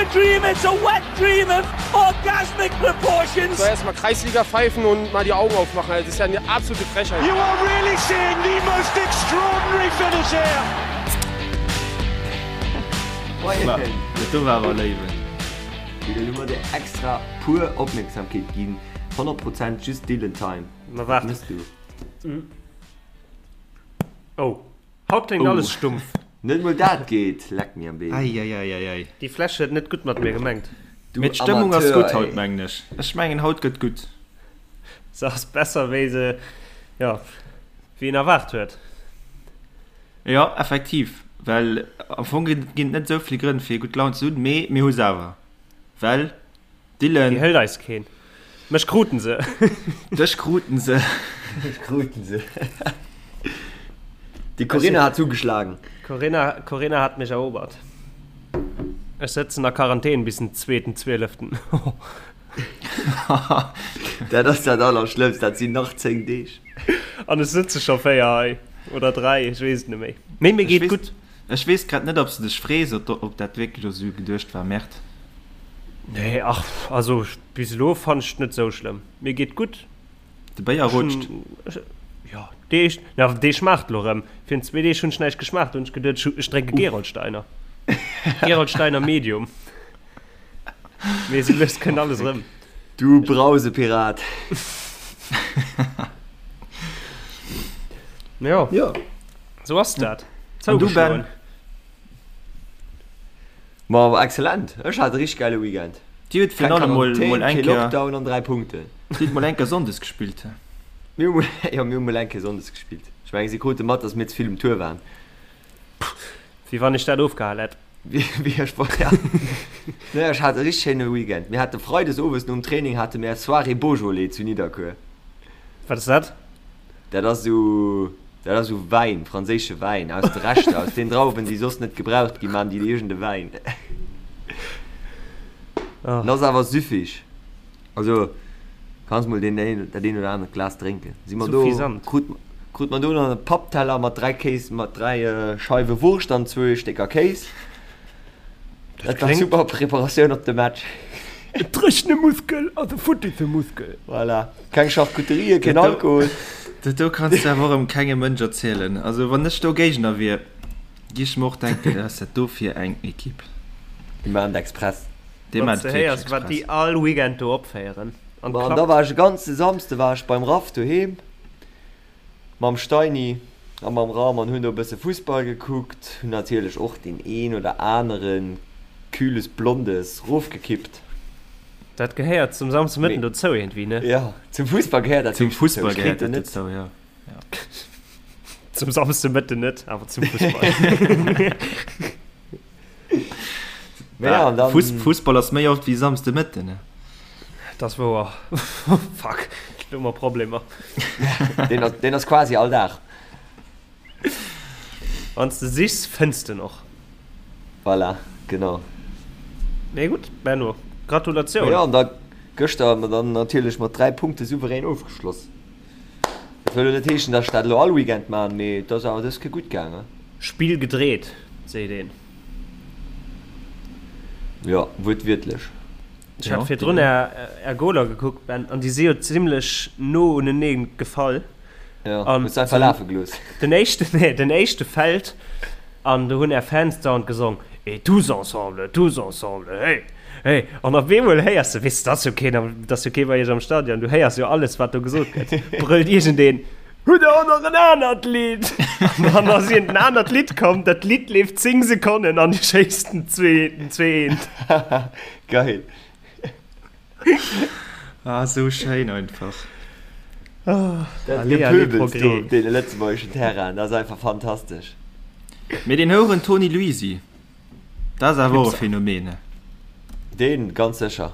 a dream, it's a wet dream of orgasmic proportions. So erstmal Kreisliga pfeifen und mal die Augen aufmachen. Das ist ja eine absolute Frechheit. You are really seeing the most extraordinary finish here. Dat do war awer léiwen. Wéi elo hu mer dir extra puer Opmierksamkeet ginn. 100 Prozent just Dylan Time. Ma Wat waart. mëss du? Oh, haut kléngt alles stumpf. Net mol dat geet, leck mir am Been. Eieieiei. Déi Fläsch huet net gutt mat mir gemengt. Du Mee d'Stëmmung ass Amateur, gutt haut, ey. mengen ech. Ech mengen haut gëtt gutt. Se ass besser wéi se, jo, wéi een erwaart huet. Jo, effektiv, well am Fong ginn et net esou vill Grënn fir gutt Laun ze hunn, mee mir hu se awer, well Dylan. Déi hëlt eis keen. Mech kruten se. Dech kruten se. Dech kruten se. Déi Corinna hat zugeschlagen. Corinna, Corinna hat mech erobert. Ech sëtzen a Quarantän bis den zweeten Zwieleften. Dat ass dat Allerschlëmmst, dat sinn nach 10 Deeg. An ech sëtze scho 4 hei. Oder 3, ech weess et net méi. Mee mir geet gutt. Ech weess grad net ob s de dech frees ob dat wierklech esou geduecht war Mert. Nee ach also bis elo fannt ech et net sou schlëmm. Mir geet gutt. De Béier rutscht. Jo dee na dee schmaacht elo rëm. Virun zwee Deeg hunn ech näischt geschmaacht, do hunn ech geduet ech drénke Gerolsteiner. Gerolsteiner Medium. Mee sou lues kënnt alles rëm. Du Brausepirat. Jo. Jo. Sou ass dat. An du Ben? Ma excellent, ech hat e richteg geile Weekend. Dir hutt virun allem mol mol eng Kéier Kéier Lockdown an 3 Punkten. Dir hutt mol eng Kéier Sonndes gespillt. Mir hu mol, jo mir hu mol eng Kéier Sonndes gespillt. Ech mengen si krute mat, datt mir ze vill um Tour waren. Wéi wann ech dat ofgehal hätt. Wéi ech war, ja. Nee, ech hat e richteg schéine Weekend. Mir hate Freides owes nom Training hate mir Soirée Beaujolais zu Nidderkuer. Wat ass dat? Dat ass esou, dat ass esou Wäin, franséische Wäin aus de Reschter, aus den Drauwen, déi soss net gebraucht ginn, maachen déi iergend e Wäin. Oh. En ass awer süffig. Also kanns mol deen een, dat een oder anert Glas drénken. Si mer do, Suffisant. krut, krut mer do nach e Pappteller mat 3 Kéis, mat 3 Scheiwe Wurscht an zwou Stécker Kéis. Dat war super Preparatioun op de Match. E dréchene Muskel ass e futtisse Muskel. Voilà. Keng Charcuterie, keen Alkohol. Dat do kanns de awer och erëm kengem Mënsch erzielen. Also wann ech do Géigner wier, gi ech mer och denken, wat ass dat do fir eng Ekipp. Déi maachen et express. Déi Wann s maachen de et héiers, wierklech wat déi express. all Weekend do opféieren. An Ma an da klappt. war ech e ganze Samsde war ech beim Raff doheem mam Steini a mam Ram an hunn do e bësse Fussball gekuckt. Hunn natierlech och deen een oder anere Kühles Blondes rofgekippt. Dat gehéiert zum Samsdemëtten dozou iergendwéi, ne? Jo, zum Fussball gehéiert dat Zum wierklech dozou. Fussball Ech gehéiert kritt en dat net. dozou, jo. Zum Samsdemëtten net, awer zum Fussball. Mä ja, an dann. Fuss, Fussball ass méi oft wéi Samsdemëtten, ne? Dat ass wouer. Fuck, do hu mer Problemer. Deen ass, deen ass quasi all Dag. Wann s de sichs, fënns de en och. Voilà, genau. Mee gutt, Benno, Gratulatioun! Jo, an da gëschter hu mer dann natierlech mat 3 Punkte souverän ofgeschloss. Dat wëll elo net heeschen, datt ech dat elo all Weekend maachen, mee et ass awer dës Kéier gutt gaangen. Spill gedreet, seet een. Jo, wuertwiertlech. Ech hat virdrun är Goler gekuckt, Ben, an déi si jo zimmlech no unenee gefall. Jo, hues du einfach lafe gelooss. Den éischten, nee, den éischte fält an do hunn är Fans dauernd gesong, Et tous ensemble, tous ensemble, hey, hey. An op eemol héiers de, weess de, et ass jo keen am, et ass jo kee bei iech am Stadion, du héiers jo alles, wat do gesot gëtt, brëllt iergendeen, Hutt der och nach en anert Lidd? An dann ass iergend en anert Lidd komm, dat Lidd leeft 10 Sekonnen an dir schéisst den zwee, den 2, 1. Geil. Ah, sou schéin einfach. Dat Gepöbels do op deene lëtzebuergeschen Terrainen, dat ass einfach fantastesch. Mee deen Houeren Toni Luisi, dat ass awer och e Phänomen, ne? Deen ganz sécher.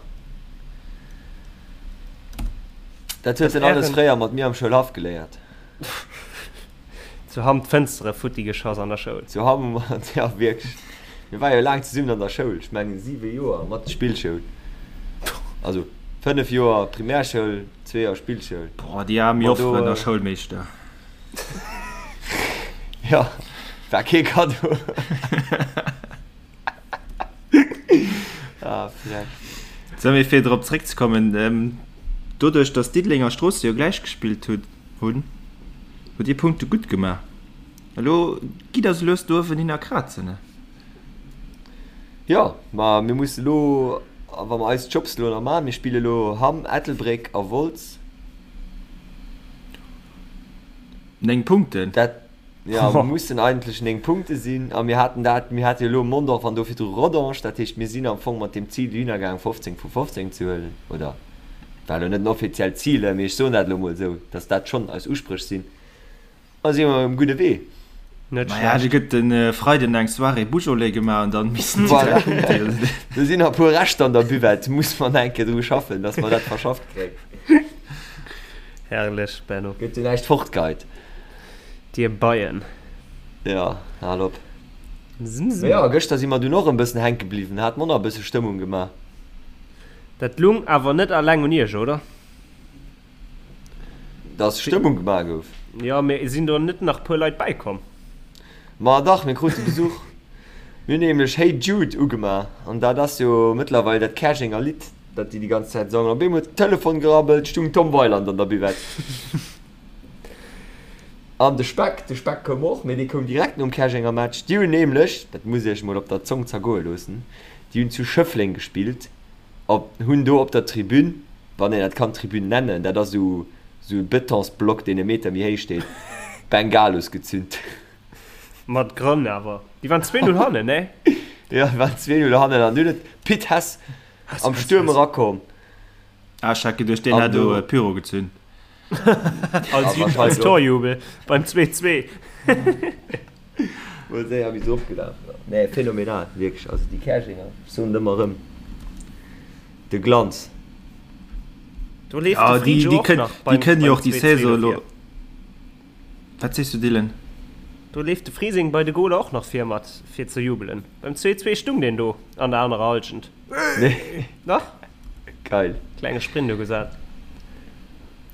Dat huet en alles fréier mat mir am Schoulhaff geléiert. Zu Hamm d'Fënstere futti geschoss an der Schoul. Zu Hamm hu mer, jo wierklech, mir ware jo laang zesummen an der Schoul, ech mengen 7 Joer mat Spillschoul, also 5 Joer Primärschoul, zwee Joer Spillschoul. Boah, déi aarm Jofferen a Schoulmeeschter. Jo, war kee Kaddo. Ah, frech. Sou, mee fir drop zréckzekommen, doduerch datt Diddeleng a Stroossen jo gläich gespillt hunn, hutt Dir Punkte gutt gemaach. Elo gitt der se lues do uewen hin a krazen, ne? Jo, ma mir musse elo, wa mer eis Jobs elo nach maachen, mir spille elo Hamm, Ettelbréck a Wolz. 9 Punkten? Dat, jo, mussen eigentlech 9 Punkte sinn. A mir haten dat, mir hate jo elo Mondorf an do virdru Rodange. Dat heescht, mir sinn am Fong mat deem Zil dohinner gaang, 15 vu 15 ze huelen. Oder war elo net en offiziellt Zil, mee ech soen dat elo mol esou, datt dat schonn eis Uspréch sinn. A si mer um gudde Wee. Net Maja, schlecht. do gëtt de Freiden eng Soirée Beaujolais gemaach an dann missen déi Voilà. 3 Punkte jo. Do sinn nach e puer Reschter an der Buvette, muss mer nach eng Kéier dru schaffen, dass mer dat verschafft kréien. Herrlech, Benno. Gëtt jo näischt fortgeheit. Dir Beien. Jo, hal op. Zim, Mee zim. jo, gëschter si mer dunn och e bëssen hänke bliwwen, hat mer och nach e bësse Stëmmung gemaach. Dat lung awer net alleng un iech, oder? Dass Stëmmung gemaach gouf. Jo, mee sinn do net nach puer Leit bäikomm? Ma dach, mir krute Besuch. Mir hunn nämlech Hey Jude ugemaach an dat ass jo mëttlerweil dat Käerjenger Lidd, dat déi déi ganz Zäit sangen. Op eemol huet den Telefon gerabbelt, stung Tom Weiland an der Buvette. An de Speck, de Speck koum och, mee dee koum direkt nom Käerjenger Match. Déi hunn nämlech, dat musst Dir Iech mol op der Zong zergoe loossen, déi hunn zu Schëffleng gespillt. Op hunn do op der Tribün, wann een dat kann Tribün nennen, dat ass esou esou e Betonsblock deen e Meter méi héich steet, Bengalos gezünt. Mat Grënn awer. Déi waren 2-0 hannen, ne? Jo, déi waren 2-0 hannen an dunn huet d'Pit Hess am Stuerm erakomm. Ah, ech hat geduecht, deen An hätt do do. Pyro gezünt. Als, Ah, als Torjubel beim 2-2. Mol séier wéi se ofgelaf war. Nee, phänomenal, wierklech. Also déi Käerjenger, ech soen et ëmmer erëm, de Glanz. Do leeft Ja, de déi, Friedjo déi och kënn, nach déi beim, kënnen jo beim och déi 2-2 Saison elo. dofir. Wat sees du, Dylan? Do leeft de Frising bei de Goler och nach vir mat fir ze jubelen. Beim 2-2 stung deen do an der anerer Halschent. Nee. Dach. Geil. Klenge Sprint ugesat.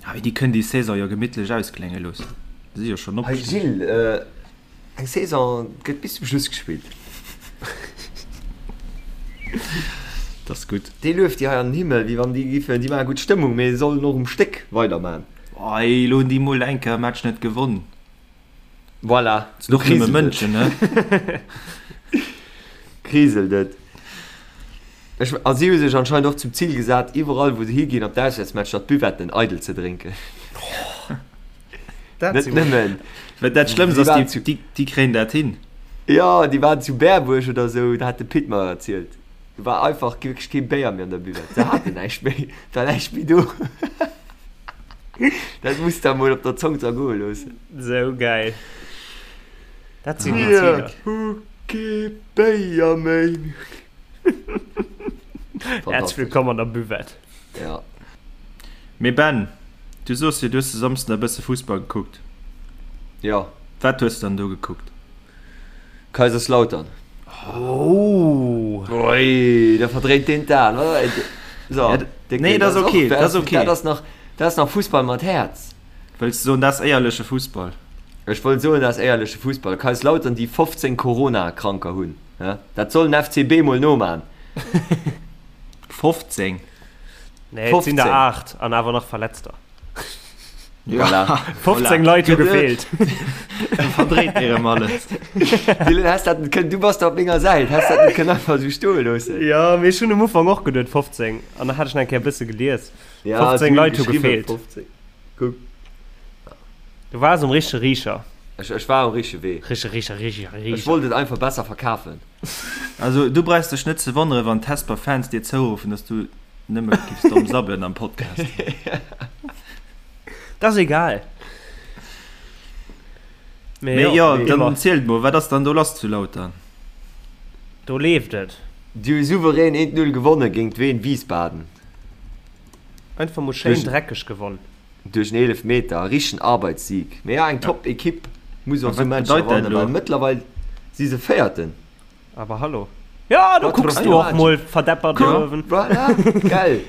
Ah, mee déi kënnen déi Saison jo gemittlech ausklénge loossen. Si si jo schonn Hey opgestigen. Gilles, eng Saison gëtt bis zum Schluss gespillt. Dat ass gutt. Déi lueft déi hei an den Himmel, wéi wann déi giffen, déi maache gutt Stëmmung, mee sollen och um Stéck weiderman. Ei, elo hunn déi mol eng Kéier e Match net gewonn. Voilà, Sinn och nëmme Mënschen, ne? Kriselt et. Ech, a si hu sech anscheinend och zum Zil gesat, iwwerall wou se higinn op d'Auswäertsmatcher, d'Buvetten eidel ze drénken. Dat Net si nëmmen. Wat dat Schlëmmst Si ass, waren déi, zu, déi, déi kréien dat hin. jo, déi waren zu Berbuerg oder esou, dat hat de Pit mer erzielt. Do war einfach wierklech kee Béier méi an der Buvette. Se haten näischt méi, et war näischt méi do. Dat muss der mol op der Zong zergoe loossen. Sou gäil. Dat sinn déi Ziler. Mir hu kee Béier méi. Häerzlech wëllkomm an der Buvette. Ja. Mee Ben, du soos jo, du hues de Samsden e bësse Fussball gekuckt. Ja. Wat hues de dann do gekuckt? Kaiserslautern. Oh! Ui, da verdréint deen d'Aen, oder? So, Ja, nee, dat ass okay, dat ass okay. Dat ass nach, dat ass nach Fussball mat Häerz. Wëlls de soen, dat ass éierleche Fussball? Ech wollt soen, dat ass éierleche Fussball. Kaiserslautern, déi 15 Corona-Kranker hunn. Dat soll den FCB mol noman. 15? Nee, et sinn der 8 an awer nach Verletzter. Voilà. 15 Leit hu gefeelt. Verdréit dir erëm alles. Dylan, häss dat net kënnen, du bass da op menger Säit, häss dat net kënnen einfach esou stoe loossen. Jo, mee ech hunn um Ufank och geduet 15 an da hat ech nach eng Kéier e bësse gelies. Ja, 15 Leit hu gefeelt. 15. Kuck. Du waars um richtege Riicher. Ech, ech war um richtege Wee. Richtege Riicher, Riicher, Ech Riicher. wollt et einfach besser verkafen. Also du brauchs dech net ze wonneren, wann d'Hesper Fans dir zouruffen, dass du nëmme giffs domm sabbelen am Podcast. Dat ass egal. Mee Mee jo, jo, wéi dann ëmmer. zielt mol, wat ass dann do lass zu Lautern? Do leeft et. Déi hu souverän 1, 0 gewonne géint Wien Wiesbaden. Einfach mol schéin Duerch. dreckeg gewonn. Duerch en Eelefmeter, e richtegen Arbeitssieg. Mee ja, eng top Ekipp muss A och esou wat Matcher bedeit dat wannen, elo? well mëttlerweil si se Véierten. Aber hallo. Ja, do kucks du och mol verdeppert do uewen. Voilà, gell.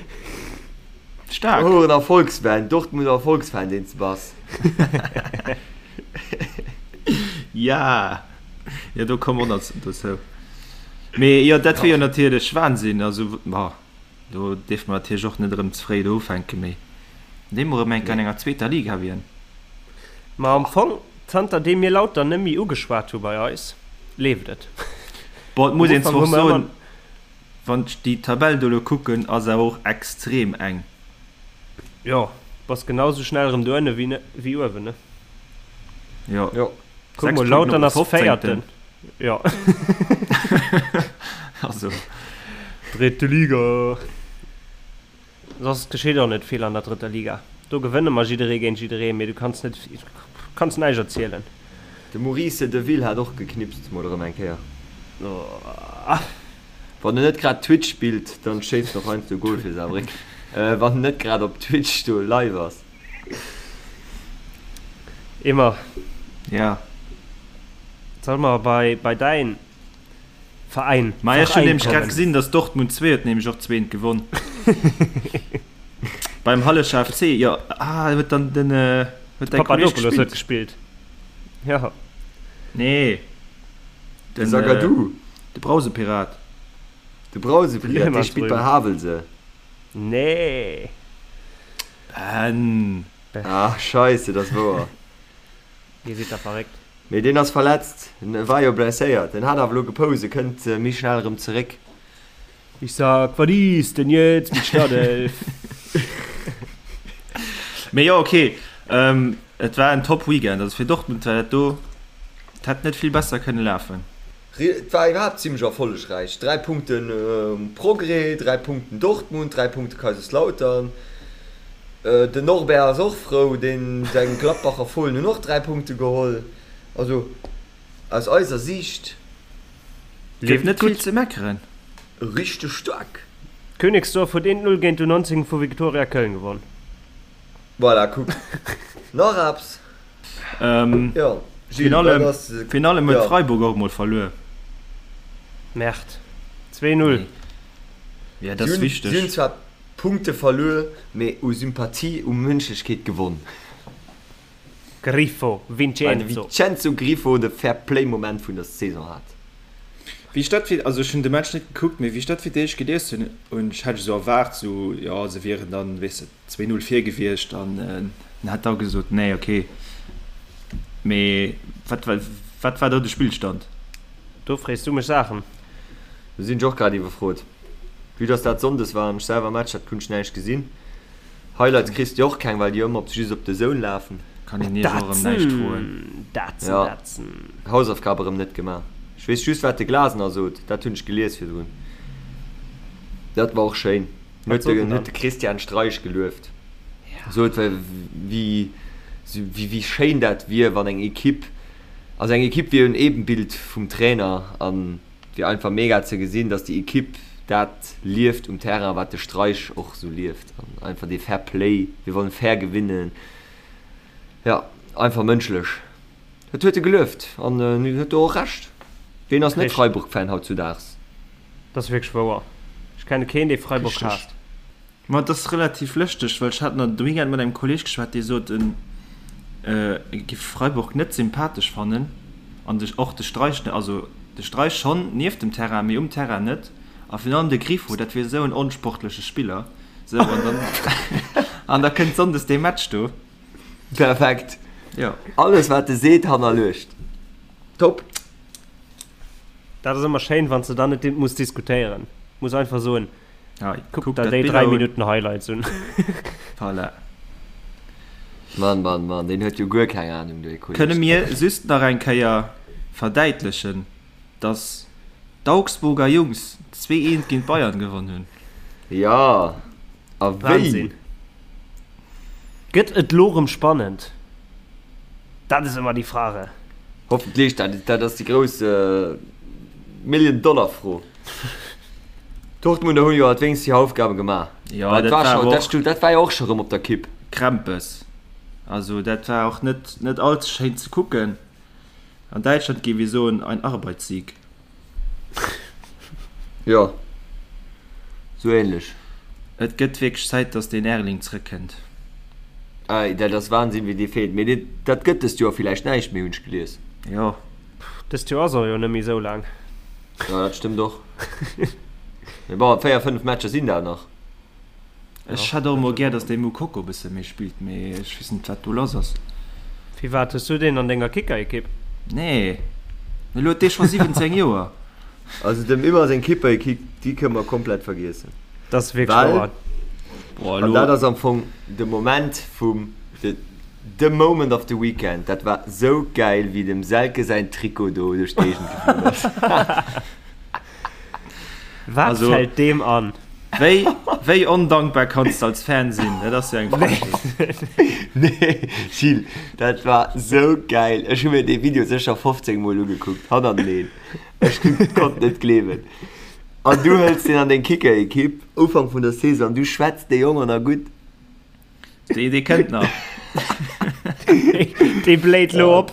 Staark. Oh, en Erfolgsfan, Dortmunder Erfolgsfan, deen s de bass. Ja, jo, do komme mer och nach dozou. Mee jo, dat wier jo natierlech Wahnsinn. Also, ma do dierfe mer natierlech och net erëm ze fréi do ufänken, mee wann déi mol erëm eng Kéier an enger zweeter Liga wieren. Ma am Fong, zanter deem mir Lautern net méi ugeschwat hu bei eis, leeft et. Bon, et Am muss een Ufank zwar hu och mer ëmmer. soen, wann ech déi Tabell do elo kucken, ass awer och extrem eng. Jo, bass genau sou schnell erëm do ënne wéi uewen, ne? Jo. Jo. Kuck 6 mol, Punkten op Lautern de ass 15. Véierten. Jo. Also. Dritte Liga. Soss geschitt och net vill an der drëtter Liga. Do gewënne mer jidderee géint jidderee, mee du kanns net, kanns näischt erzielen. De Maurice Deville hat och geknipst, mol erëm eng Kéier. Wann en net grad Twitch spillt, dann schéisst en och heiansdo e Goal fir Saarbrécken. Wann en net grad op Twitch do live ass. Immer. Ja. Solle mer bei, bei däin Veräin, Ma ech hunn Veräin nämlech grad kommen? gesinn, dass Dortmund 2 huet nämlech och zweent gewonn. Beim Hallescher FC, jo. Ah, huet dann den, huet däi Kolleg Papadopoulos huet gespillt? gespillt. Ja. Nee. De Den, Zagadou. de Brausepirat. De Brausepirat, dee spillt bei Havelse. Nee. Ben. Ah, scheisse, dat ass wouer. Dir sidd da verréckt. Mee deen ass verletzt, en war jo blesséiert, en hat awer elo gepoust, e kënnt méi schnell erëm zeréck. Ich sag, wat is denn jetzt mit Startelf? Mee jo, okay, et war en top Weekend, also fir Dortmund war dat do, et hätt net vill besser kënne lafen. Et war iwwerhaapt zimmlech erfollegräich, 3 Punkten Progrès, 3 Punkten Dortmund, 3 Punkte Kaiserslautern. Den Norbert ass och frou, deen seng Gladbacher Fohlen hunn och 3 Punkte geholl. Also aus eiser Siicht. Gëtt net vill ze meckeren. Richteg staark. Königsdorf huet 1, 0 géint d'U19 vu Viktoria Köln gewonn. Voilà, kuck. Nach eppes? Jo, Gilles, wat ass. Virun allem huet Freiburg och emol verluer. Merde. 2, 0. Jo, dat ass wichteg. Si hunn zwar Punkte verluer, mee u Sympathie, u Mënschlechkeet gewonn. Grifo, Vincenzo. Well de Vincenzo Grifo de Fair-Play-Moment vun der Saison hat. Wéi ech dat fir, also ech hunn de Match net gekuckt, mee wéi ech dat fir d'éischt gelies hunn, hunn ech, hat ech esou erwaart, esou, jo, se wieren dann, weess de, 2, 0 vir gewiescht an en hat da gesot, nee, okay. Mee wat war, wat war do de Spillstand? Do frees du mech Saachen. Do sinn ech och grad iwwerfrot. Vue dass dat Sonndes war an ech selwer Match hat, kunnt ech näischt gesinn. Highlights kriss de och keng, well déi ëmmer op just op de Zone lafen. Kann een iech och erëm näischt froen. Datsen, Ja, datsen. Hausaufgab erëm net gemaach. Ech weess just wat de Glasener sot, dat hunn ech gelies virdrun. Dat war och schéin. Wat Huet sot de, en huet dann? de Christian Streich gelueft. Sot wéi, wéi, wéi schéin dat wier, wann eng Equipe, also eng Equipe wier en Ebenbild vum Trainer an et wier einfach mega ze gesinn, datt déi Equipe dat lieft um Terrain, wat de Streich och sou lieft an einfach dee Fair Play, wir wollen fair gewinnen, jo, einfach mënschlech. Dat huet e gelueft an en huet do och Recht. Ween ass net Freiburg-Fan hautzudaags? Dat ass wierklech wouer. Ech kenne keen, dee Freiburg haasst. Ma et ass relativ lëschteg, well ech hat nach de Weekend mat engem Kolleeg geschwat, dee sot, en giff Freiburg net sympathesch fannen an de och de Streich net, also de Streich schonn nieft dem Terrain, mee um Terrain net. A virun allem de Grifo, dat wier esou en onsportleche Spiller. Sou, an dann an da kënnt sonndes dee Match do. Perfekt. Jo. Alles wat e seet hannerluecht. Top. Dat ass ëmmer schéin, wann s de dann net muss diskutéieren. Muss einfach soen, Ja, kuck der déi 3 Minutten Highlights un. Voilà. Mann, Mann, Mann, deen huet jo guer keng Ahnung, dee Kolleg. Kënne mir just nach eng Kéier verdäitlechen, dass d'Augsburger Jungs 2, 1 géint d'Bayern gewonn hunn? Jo, a wéi! Wahnsinn. Gëtt et lo rëm spannend? Dat is ëmmer déi Frage. Hoffentlech, dat, dat ass déi grouss Million-Dollar-Fro. D'Dortmunder hunn jo alt wéinst hir Aufgabe gemaach. Jo, Dat dat war war scho, awer dat och stu, dat war jo och scho rëm op der Kipp. Krempes. Also dat war och net, net all ze schéin ze kucken. An Däitschland géif ee soen, ein Arbeitssieg. Jo, sou ähnlech. Et gëtt wierklech Zäit, dass deen Erling zrëckkënnt. Ei, dat ass Wahnsinn, wéi dee feelt. Mee dee, dat gëtt dëst Joer villäicht näischt méi, hunn ech gelies. Jo. Dëst Joer ass och jo net méi sou laang. Jo, dat stëmmt och. Mee bon, 4, 5 Matcher sinn dat nach. Ech hätt och emol gär, datt dee Moukoko e bësse méi spillt, mee ech weess net, wat do lass ass. Firwat hues du deen an denger Kickerekipp? Nee, mee elo huet dee scho 17 Joer. Also dem Ymer seng Kipperekipp, déi kënne mer komplett vergiessen. Dat ass wierklech wouer. Well, an dat ass am Fong de Moment vum, the moment of the weekend, dat war sou gäil, wéi dem Selke säin Trikot do duerch d'Géigend geflunn ass. Wat also, fällt deem an? Wéi, wéi ondankbar kanns de als Fan sinn? Dat ass jo eng Frechheet. Nee, Gilles, dat war sou gäil. Ech hu mir dee Video sécher 15 Mol ugekuckt, hannerteneen. Ech konnt net gleewen. An du hëls deen an deng Kicker-Ekipp, Ufank vun der Saison, du schwätz dee Jong an a gutt. Dee, dee kënnt nach. Dee bléit lo op.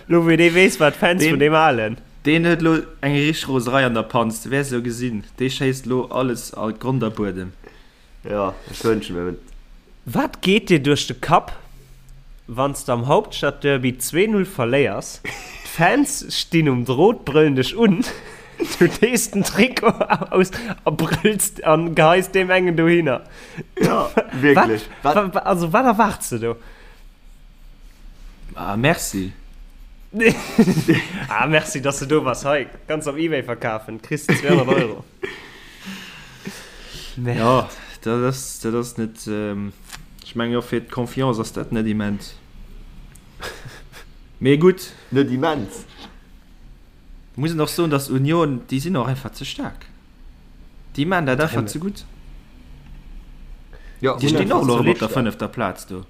Lo wou dee weess, wat d'Fans vun deem halen. Deen huet lo eng richteg Roserei an der Panz. Du wäers jo gesinn, dee schéisst lo alles a Grond a Buedem. Jo, ech wënsche mir et. Wat geet dir duerch de Kapp, wann s de am Hauptstadtderby 2, 0 verléiers, d'Fans stinn um Drot, brëllen dech un, du dees den Trikot aus a brëlls an geheis deem engen dohinner? Ja, wierklech. Wat, wat, also wat erwaarts de do? Ah, merci. ah, merci, dass du do bass. Hei, kannst op Ebay verkafen, kriss 200 Euro. Merde. Ja, dat ass, dat ass net, ähm, ech mengen och fir d'Confiance ass dat net immens. Mee gutt. Net immens. Muss een och soen, dass Union, déi sinn och einfach ze staark. Déi maan dat einfach ze gutt. Ja, Déi stinn och elo erëm op der fënnefter Plaz do.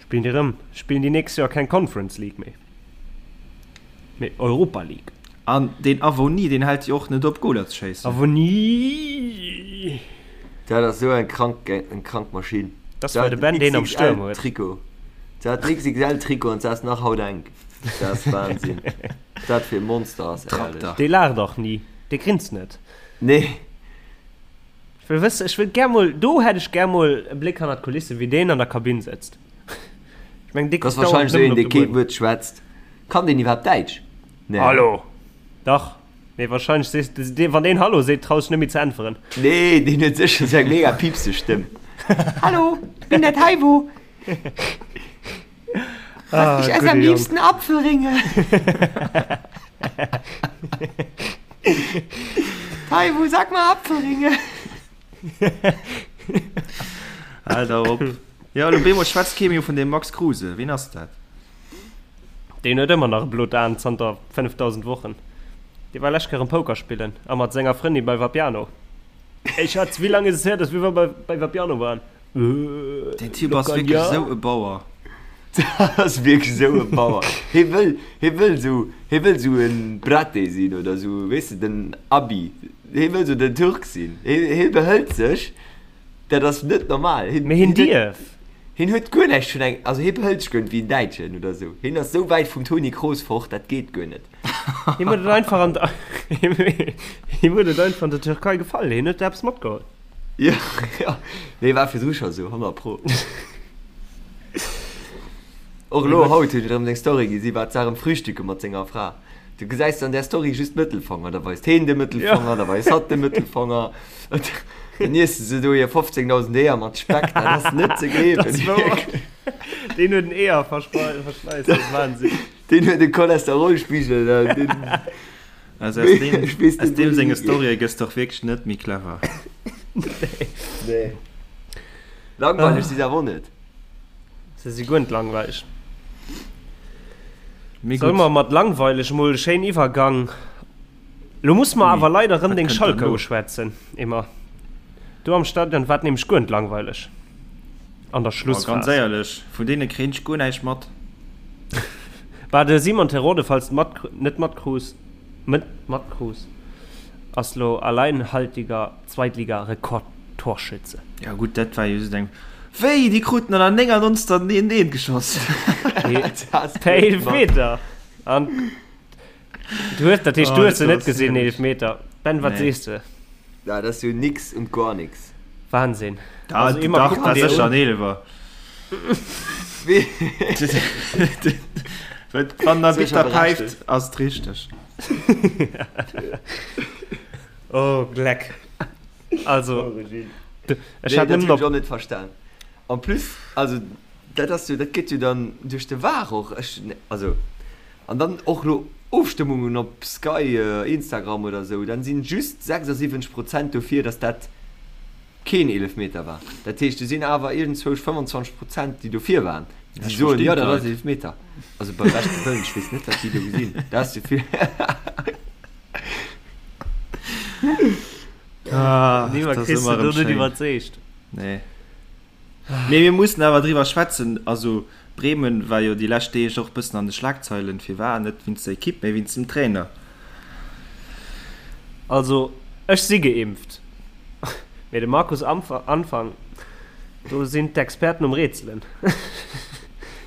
Spillen déi erëm, spillen déi nächst Joer keng Conference League méi, mee Europa League. An deen Avoni, deen hält jo och net op Goler ze schéissen. Avoni! Dat ass esou eng krank, eng krank Maschinn. Dat ass well de Ben deen am Stuerm huet. Trikot. Dat hat den XXL-Trikot an se ass nach haut enk. Dat ass Wahnsinn. Dat fir e Monster ass, éierlech. Dee laacht och ni. Dee grinst net. Nee. Ech wëll wëssen, ech wëll gär mol, do hätt ech gär mol e Bléck hannert d'Kulissen, wéi deen an der Kabinn sëtzt. Ech mengen, dee kuckt dauernd nëmmen op de Buedem. Dat ass wahrscheinlech esou een, dee kee Wuert schwätzt. Kann deen iwwerhaapt Däitsch? Nee. Hallo! Dach. Mee wahrscheinlech sees de, wann deen Hallo seet, traus dech net méi ze äntweren. Nee, deen huet sécher esou eng mega piepseg Stëmm. Hallo, ich bin der Taiwo. Ah, ich esse am liebsten Apfelringe. Taiwo, sag mal Apfelringe. Alter, op. Ja, lo bemol schwätzt kee méi vun dem Max Kruse. Wien ass dat? Deen huet ëmmer nach e blot Aan zanter 5000 Wochen. Dee war lescht Kéier erëm Poker spillen a mat senger Frëndin bei Vapiano. Ey Schatz, wéi laang is es her, dass wir bei, bei Vapiano waren? Den Typ ass wierklech esou e Bauer. Dat ass wierklech esou e Bauer. Hie wëll, hie wëll esou, hie wëll esou e Braté sinn oder esou, weess de, den Abi. Hie wëll esou den Turk sinn. Hie, hie behëlt sech, dat ass net normal. Hien, Mee hien dierf. Hien huet guer näischt vun engem, also hie behëlt sech guer net wéi en Däitschen oder esou. Hien ass esou wäit vum Toni Kroos fort, dat geet guer net. Him huet et einfach an der, him huet et einfach an der Türkei gefall. Hien huet eppes matgeholl. Jo, jo. Nee, war virdru scho sou, 100 pro. Och elo haut huet en erëm seng Story gi, si war zwar erëm frühstücke mat senger Fra. Du gesäis an där Story just d'Mëttelfanger, da weist heen de Mëttelfanger, da weist hatt de Mëttelfanger. Dann iesse se do hir 15.000 Eeër mat Speck, dat ass net ze gleewen. Dat ass wouer. Deen huet en Eeër-Verschleiss, dat ass Wahnsinn. Deen huet e Cholesterolspigel, deen. Also aus deem, aus deem senge Storye gëss de och wierklech net méi clever. Nee. Langweileg si se awer och net. Se si guer net langweileg. Mee Solle mer mat langweileg mol e schéinen Iwwergang. Lo musse mer awer leider erëm deng Schalker uschwätzen, Emma. Do am Stadion war et nämlech guer net langweileg an der Schlussphas. Ganz éierlech, vun deene kréien ech guer näischt mat. Bah, de Simon Terodde, falls de mat, net matkruus, net matkruus, ass lo alleinhaltiger Zweitliga-Rekordtorschütze. Ja gutt, dat war jo just eng. Wéi, déi kruten an der 99. den 1, geschoss? Per Eelfmeter! An du hues, dat heescht, du hues se net gesinn, den Eelfmeter. Ben, wat sees de? Ja, dat ass jo nix und gar nix. Wahnsinn. Da, also, immer dach, dat sécher en Eelwer. Wann der Bitter päift, ass et richteg. Oh Gleck. Also ech hat nëmmen op. Net verstan. En plus also dat ass jo dat gëtt jo dann duerch de VAR och ech also an dann och lo Ofstëmmungen op Sky Instagram oder sou dann sinn just 76 Prozent dofir dass dat keen Eelefmeter war. Dat heescht do sinn awer iergendzwousch 25 Prozent déi dofir waren déi soen jo dat ass Eelefmeter. Also beim beschte Wëllen ech weess net wat déi do gesinn dat ass jo vill. Ah, Niemand das kriegst du do net iwwerzeegt. Nee. Mee mir mussen awer driwwer schwätzen. Also Bremen war jo déi lescht Deeg och bëssen an de Schlagzeilen. Firwat? Net wéinst der Ekipp, mee wéinst dem Trainer. Also ech si geimpft, mee de Markus Anfang, do sinn d'Experten um Rätselen.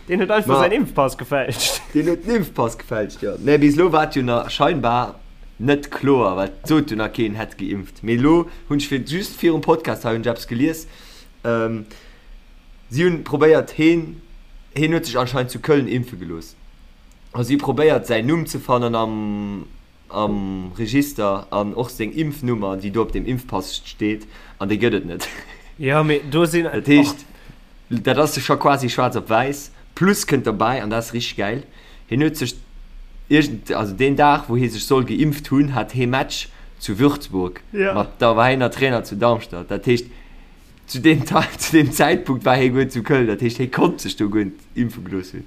Deen huet einfach säin Impfpass gefälscht. Deen huet den Impfpass gefälscht, jo. Mä bis elo war et jo nach scheinbar net kloer, well et sot jo nach keen, hätt geimpft. Mee elo hunn ech fir just virum Podcast hei hunn ech eppes gelies, si hunn probéiert heen, heen huet sech anscheinend zu Köln impfe gelooss a si probéiert säin Numm ze fannen am am Register an och seng Impfnummer, déi do op dem Impfpass steet, an déi gëtt et net. Jo, mee do sinn. Dat heescht, dat ass scho quasi schwaarz op wäiss. Plus kënnt derbäi, an dat ass richteg gäil, hien huet sech iergend, also deen Dag, wou hie sech soll geimpft hunn, hat hee Match zu Würzburg mat, da war hien nach Trainer zu Darmstadt. Dat heescht, zu deem, zu deem Zäitpunkt war hie guer net zu Köln. Dat heescht, hie konnt sech do guer net impfe gelooss hunn.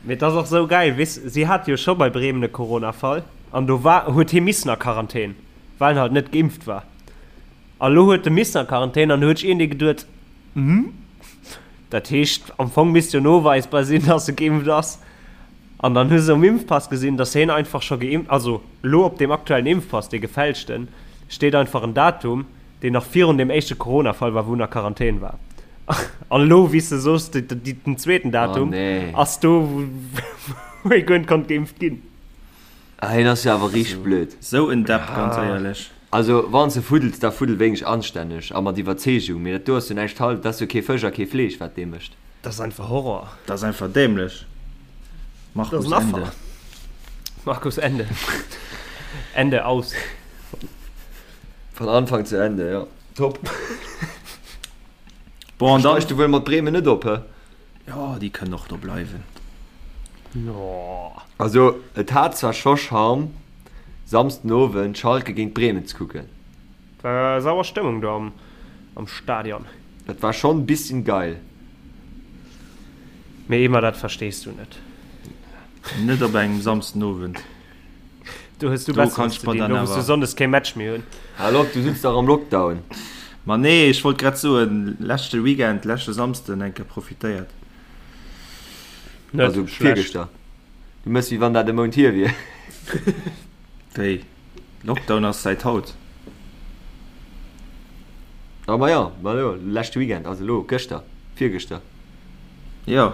Mee et ass och sou gäil, weess, si hate jo scho bei Bremen e Corona-Fall an do war, huet hie missen a Quarantän, well en halt net geimpft war. A lo huet e missen a Quarantän an do huet sech iergendee geduet, Hm, dat heescht am Fong misst jo noweisbar sinn, dass e geimpft ass. An dann hu se um Impfpass gesinn, dass hien einfach scho geimpft, also lo op deem aktuellen Impfpass, dee gefälschten, steet einfach en Datum, deen nach virun deem éischte Corona-Fall war, wou en a Quarantän war. An elo, wéi s de soos, den zweeten Datum ass do, wou ee guer net konnt geimpft ginn. Ah, hien ass jo awer richteg blöd. Sou en Depp, ganz éierlech. Also, wann s de fuddels, da fuddel wéineg anstänneg a mat Iwwerzeegung. Mee dat do ass jo näischt hal, dat ass jo kee Fësch a kee Fleesch, wat dee mécht. Dat ass einfach Horror. Dat ass einfach dämlech. Markus, Ende. Markus, Ende. Ende, aus. Von Anfang zu Ende, jo. Top. Bon, an dann. Steigst du wuel mat Bremen net op, hä? Jo, déi kënnen och do bleiwen. Jo. Also, et hat zwar scho Charme, Samsden Owend Schalke géint Bremen ze kucken. Et war sauer Stëmmung do am Stadion. Dat war schonn bisschen geil. Mee Emma, dat verstees du net. Net op engem Samsden Owend. Do hues du Besseres ze dinn, do wous du Sonndes kee Match méi hunn. Hal op, du sutz dach am Lockdown. Ma nee, ech wollt grad soen, leschte Weekend, leschte Samsden eng Kéier profitéiert. Net Also schlecht. virgëschter. Du mëss wéi wann dat e Mount hier wier. Wéi? Lockdown ass säit haut. Ah ma jo, ma jo, leschte Weekend, also elo gëschter, virgëschter. Jo.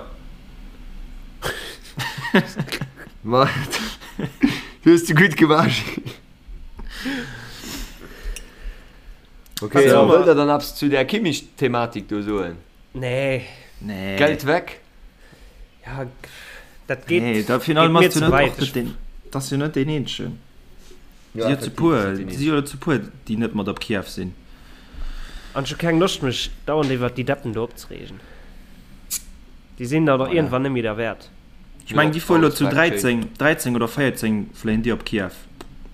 Ma du hues de gutt gemaach. Okay, Also, wëllt der dann eppes zu där Kimmich-Thematik do soen? Nee. Nee. Geld weg? Ja, dat geet, Nee, da geet finalement mir ass du ze net weit. och net deen, dat ass jo net deen eenzegen. Ja, Si jo zu effektiv, puer, ass net deen si jo zu puer, déi net mat op Kiew sinn. An ech hu keng Loscht mech dauernd iwwert déi Deppen do opzereegen. Déi sinn dann och Voilà. iergendwann net méi derwäert. Ech mengen, déi fuere lo zu Respekt, 13, 13 oder 14 fléien déi op Kiew.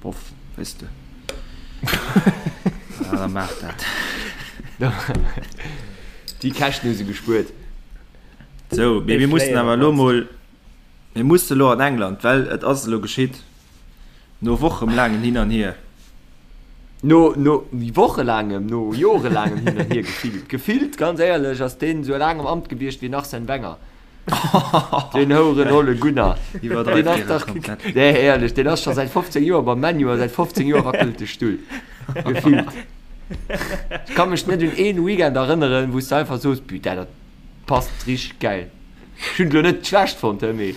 Boff, weess de. Ja, da maach dat. Déi Käschten hu se gespuert. Sou, mee Déi mir mussen fléien awer op elo mannst. mol, mir musse lo an England, well et ass elo geschitt, no wochemlaangen Hin an Hier. No, no wochelaangem, no jorelaangem Hin an Hier gefillt. Gefillt, ganz éierlech, ass deen esou laang am Amt gewiescht wéi den Arsène Wenger. Den Houeren Ole Gunnar. Deen ass dach, nee, éierlech, deen ass scho säit 15 Joer beim ManU a säit 15 Joer wackelt de Stull. Gefillt. Ech ka mech net un een Weekend erënneren, wou s de einfach soos, Putain, dat passt richteg gäil. Ech hunn et elo net schlecht fonnt, he, mee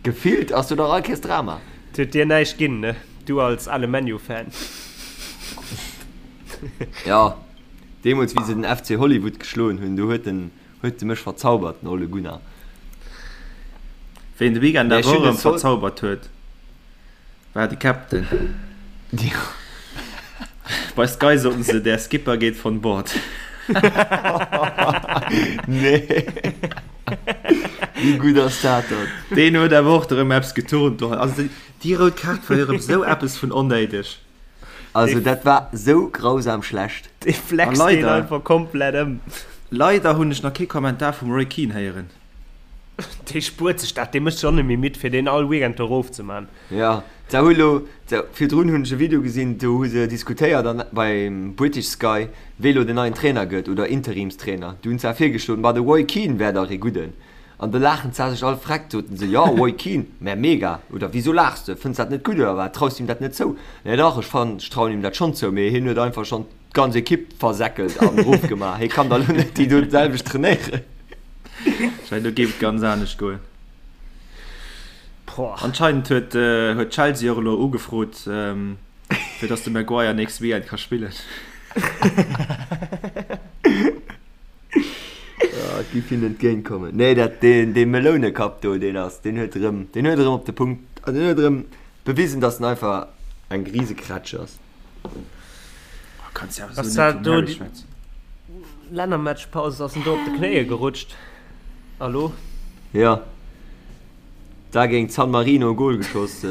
gefillt ass do dach all Kéiers Drama. Et huet dir näischt ginn, ne? Du als ale ManU-Fan. Jo, deemools wéi se den FC Hollywood geschloen hunn, do huet en huet de mech verzaubert, den Ole Gunnar. Ween de Weekend Mee ech awer hunn och den erëm Sol verzaubert huet. War de Captain. Bei Sky soten se, der Skipper geht von Bord. Nee. Wéi gutt ass dat dann? Deen huet awer och erëm eppes geturnt do. Also déi rout Kaart war jo erëm sou eppes vun onnéideg. Also dat war sou grausam schlecht. Dee flext deen einfach komplett ëm. Leider hunn ech nach kee Kommentar vum Roy Keane héieren. Dee spuert sech dat, dee mécht sech och net méi midd fir deen all Weekend do erof ze man. Jo, se hu lo, se, virdrun hunn ech e Video gesinn, do hu se diskutéiert an beim British Sky, wee lo den neien Trainer gëtt oder Interimstrainer. Du hunn se virgeschloen, ma de Roy Keane wär dach ee gudden. An do laachen se sech all freck, soten se, jo Roy Keane, mä mega. Oder wisou laachs de, fënns dat net gutt oder wat, traus de him dat net zou? Nee dach, ech fannen, ech trauen him dat schonn zou, mee hien huet einfach schonn d'ganz Ekipp versäckelt an erofgemaach. Hie kann da lo net déi do d'selwecht trainéieren. Schei, do géif et ganz anescht goen. Anscheinend huet, huet Chelsea och elo ugefrot, fir dass de Maguire nächste Weekend ka spillen. Ja, et géif hinnen entgéint kommen. Nee, dat, deen, dee Melounekapp do, deen ass, deen huet erëm, deen huet erëm op de Punkt, also deen huet erëm bewisen, dass en einfach eng Risekrätsch ass. Kanns ja ass dat do déi Lännermatchpaus ass en do op de Knéie gerutscht alo? Jo, da géint San Marino e Gol geschoss,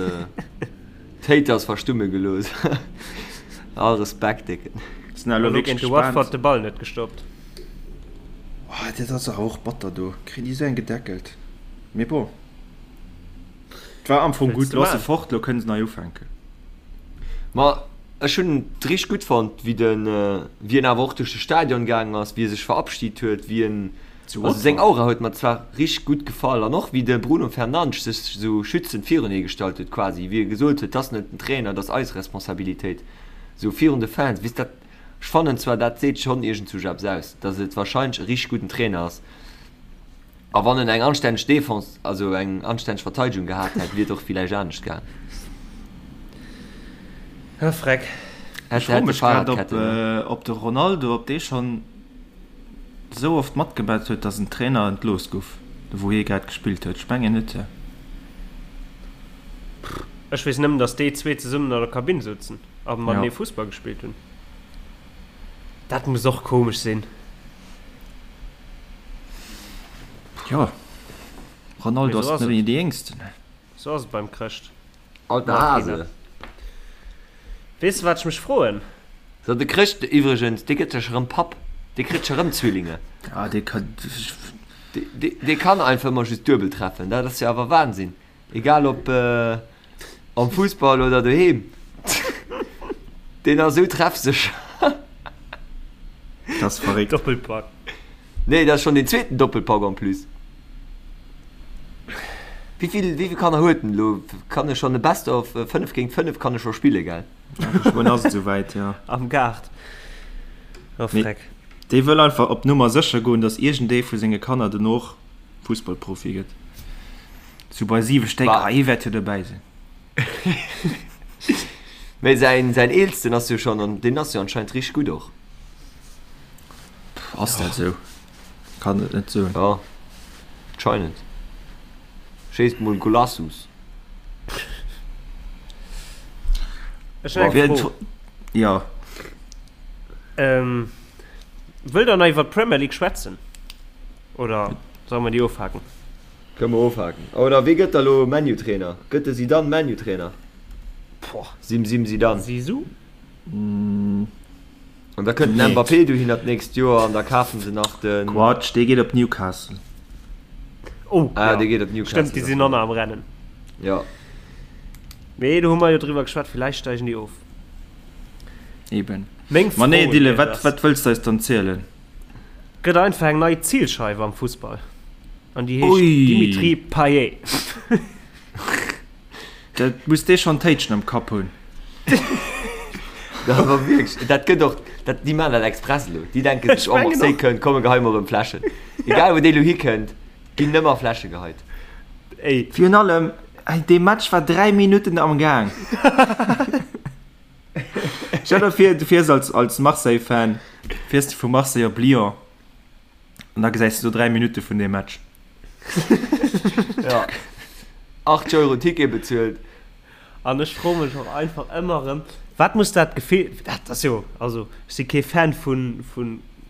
d'Haters verstumme gelooss. All Respekt, Décken. Sinn elo wierklech gespaant. Watford de Ball net gestoppt. Oh, dat ass awer och batter do, kréien déi esou eng gedeckelt. Mee bon, et war am Fong gutt. Lo ass se fort, lo kënne se nei ufänken. Ma ech hunn et richteg gutt fonnt, wéi den, wéi en awer och duerch de Stadion gaangen ass, wéi e sech verabschid huet, wéi en, also seng Aura huet mer zwar richteg gutt gefall an och wéi de Bruno Fernandes sech esou schützend virun hie gestallt huet quasi, wéi e gesot huet, 't ass net den Trainer, 't ass eis Responsabilitéit, esou virun de Fans, weess dat, ech fannen zwar dat seet schonn iergendzwousch eppes aus, datt et warscheinlech e richteg gudden Trainer ass. A wann en eng anstänneg Defense, also eng anstänneg Verteidegung gehat hätt, wier et och villäicht anescht gaang. Ah, Freck. Ech froe mech grad, ob, ob de Ronaldo, ob dee schonn esou oft matgemat huet, datt en Trainer entlooss gouf, wou hie grad gespillt huet. Ech mengen net. Ech weess nëmmen, datt déi zwee zesummen an der Kabinn souzen a matenee Fussball gespillt hunn. Dat muss och komesch sinn. Jo, Ronaldo ass net méi dee Jéngsten. Sou ass et beim Chrëscht. Alter Hase. Weess de wat ech mech froen? So, de Chrëscht iwwregens, dee gëtt sech erëm Papp. Dee kritt scho rëm Zwillinge. Ah, dee kann. Dee kann einfach ëmmer just duebel treffen. Dat ass jo awer Wahnsinn. Egal ob am Fussball oder doheem, deen ass esou treffsécher. Dat ass verréckt. Doppelpack. Nee, dat ass schonn deen zweeten Doppelpack en plus. Wéi vill, wéi vill Kanner huet en elo? Kann e schonn e Best of 5 géint 5 kann e scho spille, gell? Geschwënn ass et esouwäit, jo. Am Gaart. Oh Freck. Dee wëll einfach op Nummer sécher goen, datt iergendee vu senge Kanner dono och Fussballprofi gëtt. Sou bei 7 Stéck, ah, ee wäert jo dobäi sinn. Mee säin, säin Eelsten ass jo schonn, an deen ass jo anscheinend richteg gutt och. Pff, ass dat sou? Kann et net soen. Jo, anscheinend. Schéisst mol Golassus. Ech hunn eng Fro. Jo. Ähm, wëllt der nach iwwer d'Premier League schwätzen? Oder solle mer déi ofhaken? Kënne mer ofhaken. Oder wee gëtt da lo ManU-Trainer? Gëtt de Zidane ManU-Trainer? Boah. Sim Sim Zidane. Zizou? An da kënnt den Mbappé dohinner d'nächst Joer an da kafen se nach den. Quatsch, dee geet op Newcastle. Oh, Ah, ja. dee geet op Newcastle. Stëmmt, déi sinn och nach am Rennen. Ja. Mee do hu mer jo driwwer geschwat, villäicht steigen déi of. Eben. Meng Ma nee, Fro Dylan, un wat, iech ass. wat wëlls de eis dann zielen? Gëtt einfach eng nei Zilscheiw am Fussball an déi heescht Ui. Dimitri Payet. Dat muss dee schonn Téitschen am Kapp hunn. Dat awer wierklech, dat gëtt och, dat, déi maachen dat express elo. Déi denke sech, Ech oh mengen Marseille och. kënnt, komm mir geheie mer erëm Fläschen. Egal wou dee elo hikënnt, ginn nëmmer Fläsche geheit. Ey. Virun allem, dee Match war 3 Minutten am Gaang. Stell der vir, du fiers als, als Marseille-Fan, fiers du vu Marseille op Lyon an da gesäis du do 3 Minutte vun deem Match. Ja. 80 Euro Ticket bezuelt. An ech froe mech och einfach ëmmer erëm, wat muss dat Gefill, dat ass jo, also ech si kee Fan vu vu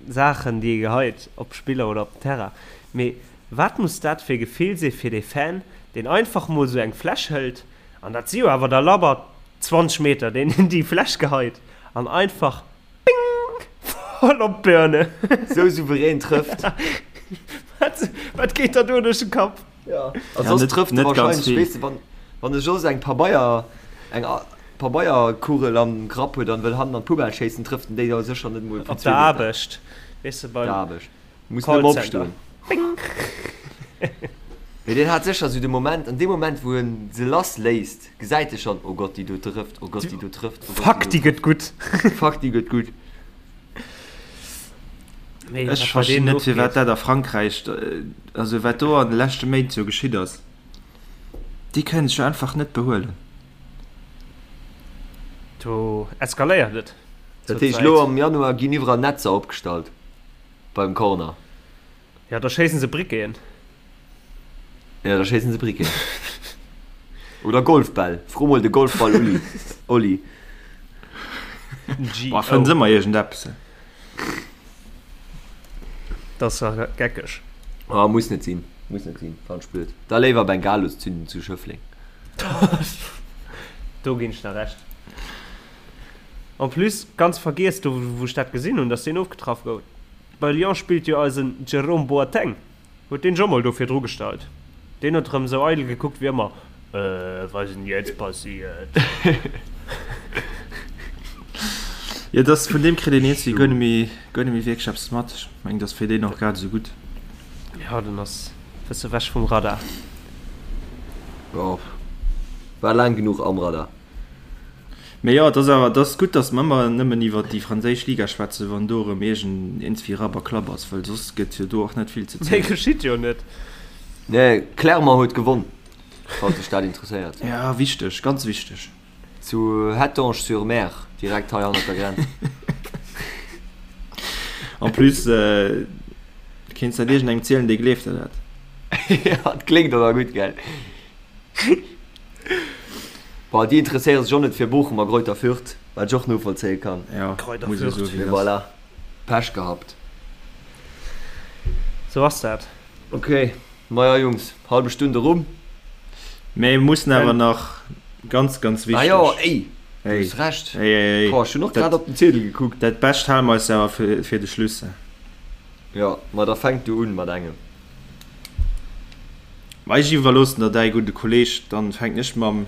Saachen, déi ee geheit op Spiller oder op den Terrain, mee wat muss dat fir e Gefill si fir dee Fan, deen einfach mol esou eng Fläsch hëlt, an dat si jo awer da labber 20 Meter, deen déi Fläsch geheit an einfach Bing! Voll op d'Birne. Sou souverän trëfft. Wat, wat geet der do duerch den Kapp? Ja, a soss trëfft e wahrscheinlech, weess de, wann, wann e soss eng Pabeier, eng Pabeierkugel am Grapp huet an wëll hannen an d'Poubelle schéissen, trëfft en déi da sécher net emol vun Op der Aarbecht, weess de, beim. Der Aarbecht. Muss nëmme opstoen. Bing! Mee deen hat sécher esou de Moment, an deem Moment, wou en se lass léisst, gesäit e schonn, Oh Gott, déi do trëfft, oh Gott, déi do trëfft, oh Gott, Fuck, déi gëtt gutt. Fuck, déi gëtt gutt. Nee, Ech verstinn net, firwat dat a Frankräich, also wat do an de leschte Méint sou geschitt ass. Déi kënnen sech jo einfach net behuelen. Do eskaléiert et. Dat heescht, elo am Januar ginn iwwerall Netzer opgestallt beim Corner. Ja, da schéissen se Briqueten. Ja, da schéissen se Briqueten. Oder Golfbäll. Fro mol de Golfball Uli. Oli. Boah, fënns ëmmer iergendeppes. Dat ass ja geckeg. Ah, muss net sinn. Muss net sinn. Fannen ech blöd. Da léiwer Bengalos zünden zu Schëffleng. Do ginn ech der Recht. En plus, ganz vergiess, do wou ech dat gesinn hunn, dass deen ofgetraff gouf. Bei Lyon spillt jo eisen Jerome Boateng. Huet deen scho mol do virdru gestallt. Deen huet rem sou eidel gekuckt wéi ëmmer, Äh, was ist denn jetzt passiert? Jo, dass vun deem kritt een iergendwéi guer net méi, guer net méi wierklech eppes mat. Ech mengen, dass fir deen och grad esou gutt. Jo, den ass bësse wech vum Radar. Jo, war laang genuch am Radar. Mee jo, et ass awer, et ass gutt, datt mer ëmmer nëmmen iwwer déi franséisch Liga schwätzen, wann do erëm iergend iergendswéi Rapp a Klapp ass, well soss gëtt jo do och net vill ze Méi zielen. geschitt jo net. Nee, Clermont huet gewonn, falls dech dat interesséiert. Ja, wichteg, ganz wichteg. Zu Hettange-sur-Mer, direkt hei hannert der Grenz. En plus, kéints dat iergendengem zielen, dee gleeft der dat. Ja, et kléngt och nach gutt, gell? Bon, déi interesséiere sech och net fir Bochum a Greuther Fürth, wat ech och novollzéie kann. Ja, Greuther muss ee Fürth. soen, wéi Mee et ass. voilà, Pech gehabt. Sou ass dat. Ok, maja Jungs, halbe Stunn erum. Mee mir mussen awer nach ganz, ganz Ah wichteg. jo, ey, du Hey, hues Recht. hey, hey, hey. Boah, ech hunn och Dat, grad op den Ziedel gekuckt. dat Bescht hale mer eis awer fir, fir de Schluss. Jo, ma da fänk du un mat engem. Ma ech iwwerloossen der däi gudde Kolleg, dann fänken ech mam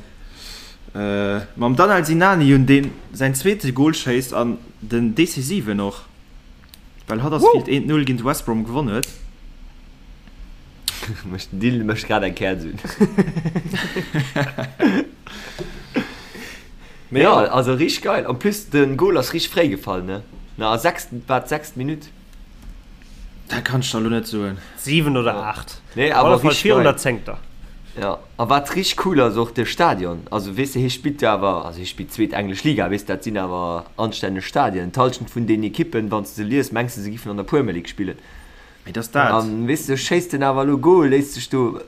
mam Danel Sinani un, deen säin zweete Gol schéisst an den decisiven och, well Huddersfield 1, 0 géint West Brom gewonn huet. Mécht den Dylan mécht grad eng Käerz un. Mee Jo, jo. also richteg geil. En plus den Gol ass richteg fréi gefall, ne? Na, a sechst, war d'sechst Minutt. Dat kann ech der elo net soen. 7 oder 8. Nee, Op awer alle Fall richteg virun geil. der zéngter. Ja, a wat richteg cool ass, och de Stadion. Also weess de, hie spillt jo awer, also hie spillt zweet englesch Liga, weess de, dat sinn awer anstänneg Stadien. D'Hallschent vun den Ekippen, wann s de se lies, mengs de se giffen an der Puermer League spillen. Mee dass dat. An weess de, schéisst en awer elo Goal, léisst sech do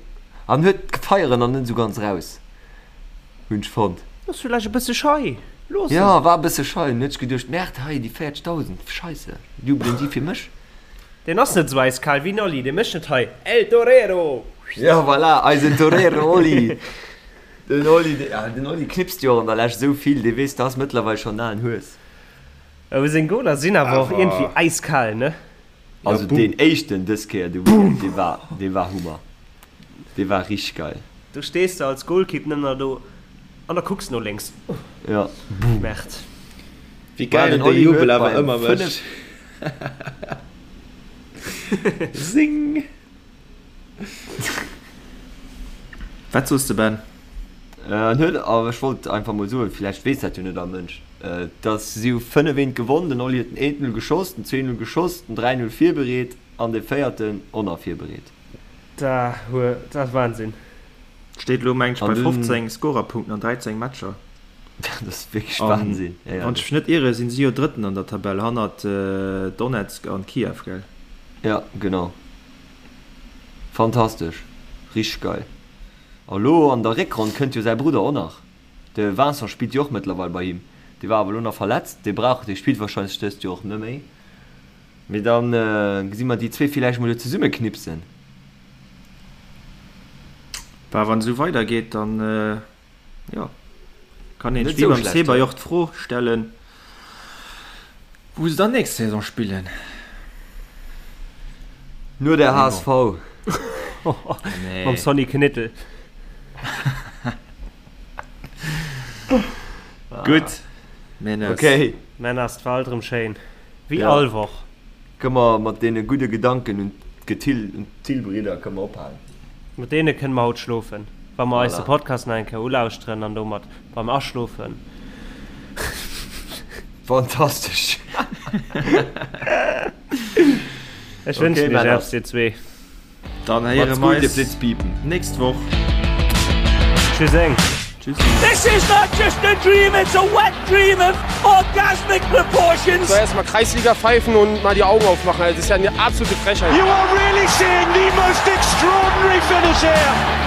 an huet d'Feieren nach net esou ganz raus, hunn ech fonnt. Ass villäicht e bësse schei, looss en. Jo, war e bësse schei. Hunn ech geduecht, Merde, hei déi 40.000, Scheisse, jubelen déi fir mech? Deen ass net esou äiskal wéi den Oli, dee mécht net hei El Torero! Jo, voilà, eisen Torero Oli. Den Oli, ja, den Oli knipst jo och an der Lescht esou vill, dee weess, dat ass mëttlerweil schonn en alen Hues. Awer seng Goler sinn awer och iergendwéi äiskal, ne? Also deen éischten dës Kéier de Weekend, dee war, dee war Hummer. Dee war richteg geil. Do stees de als Goalkeep nëmmen nach do an da kucks no lénks. Ja. Merde. Wéi geil den dee Oli Jubel huet awer beim ëmmer 5. mécht. Zing! Wat soos de Ben? En huet, awer ech wollt einfach mol soen, villäicht weess dat jo net all Mënsch, dass si hu 5 eent gewonn, den Oli huet den eent Null geschoss, den zwee Null geschoss, den 3 Null virbereet an de véierten och nach virbereet. Dat ass Wahnsinn. Steet elo meng ech An bei dunn, 15 Scorerpunkten an 13 Matcher. dat ass wierklech An Wahnsinn, wann ech éierlech. mech net iere sinn si jo Drëtten an der Tabell hannert Donetsk an Kiew, gell? Ja, genau. Fantastesch, richteg geil. A lo an der Réckronn kënnt jo säi Brudder och nach. De Vincent spillt jo och mëttlerweil bei him. Dee war awer elo nach verletzt. Dee brauch, dee spillt warscheinlech dëst Joer och net méi. Mee dann gesi mer déi zwee villäicht mol do zesumme knipsen. Bah, wann esou weider geet, dann jo, kann een wéi beim Sebay och d'Fro stellen, wou se dann nächst Saison spillen. No der HSV. Mam Sonny Knittel. Gutt, Männers. Okay. Männers, 't war alt erëm schéin. Wéi all Woch. Kënne mer mat deene gudde Gedanken un d'Gethill, un d'Thill-Bridder kënne mer ophalen. Mat deene kënne mer haut schlofen, wa mer eis de Podcast nach eng Kéier ulauschteren an domat beim Aschlofen. Fantastesch! Ech wënschen iech eppes, dir zwee. Dann héiere mer eis nächst Woch. Tschüsseng. This is not just a dream, it's a wet dream of orgasmic proportions. So, erstmal Kreisliga pfeifen und mal die Augen aufmachen. Das ist ja eine absolute Frechheit. You are really seeing the most extraordinary finish here.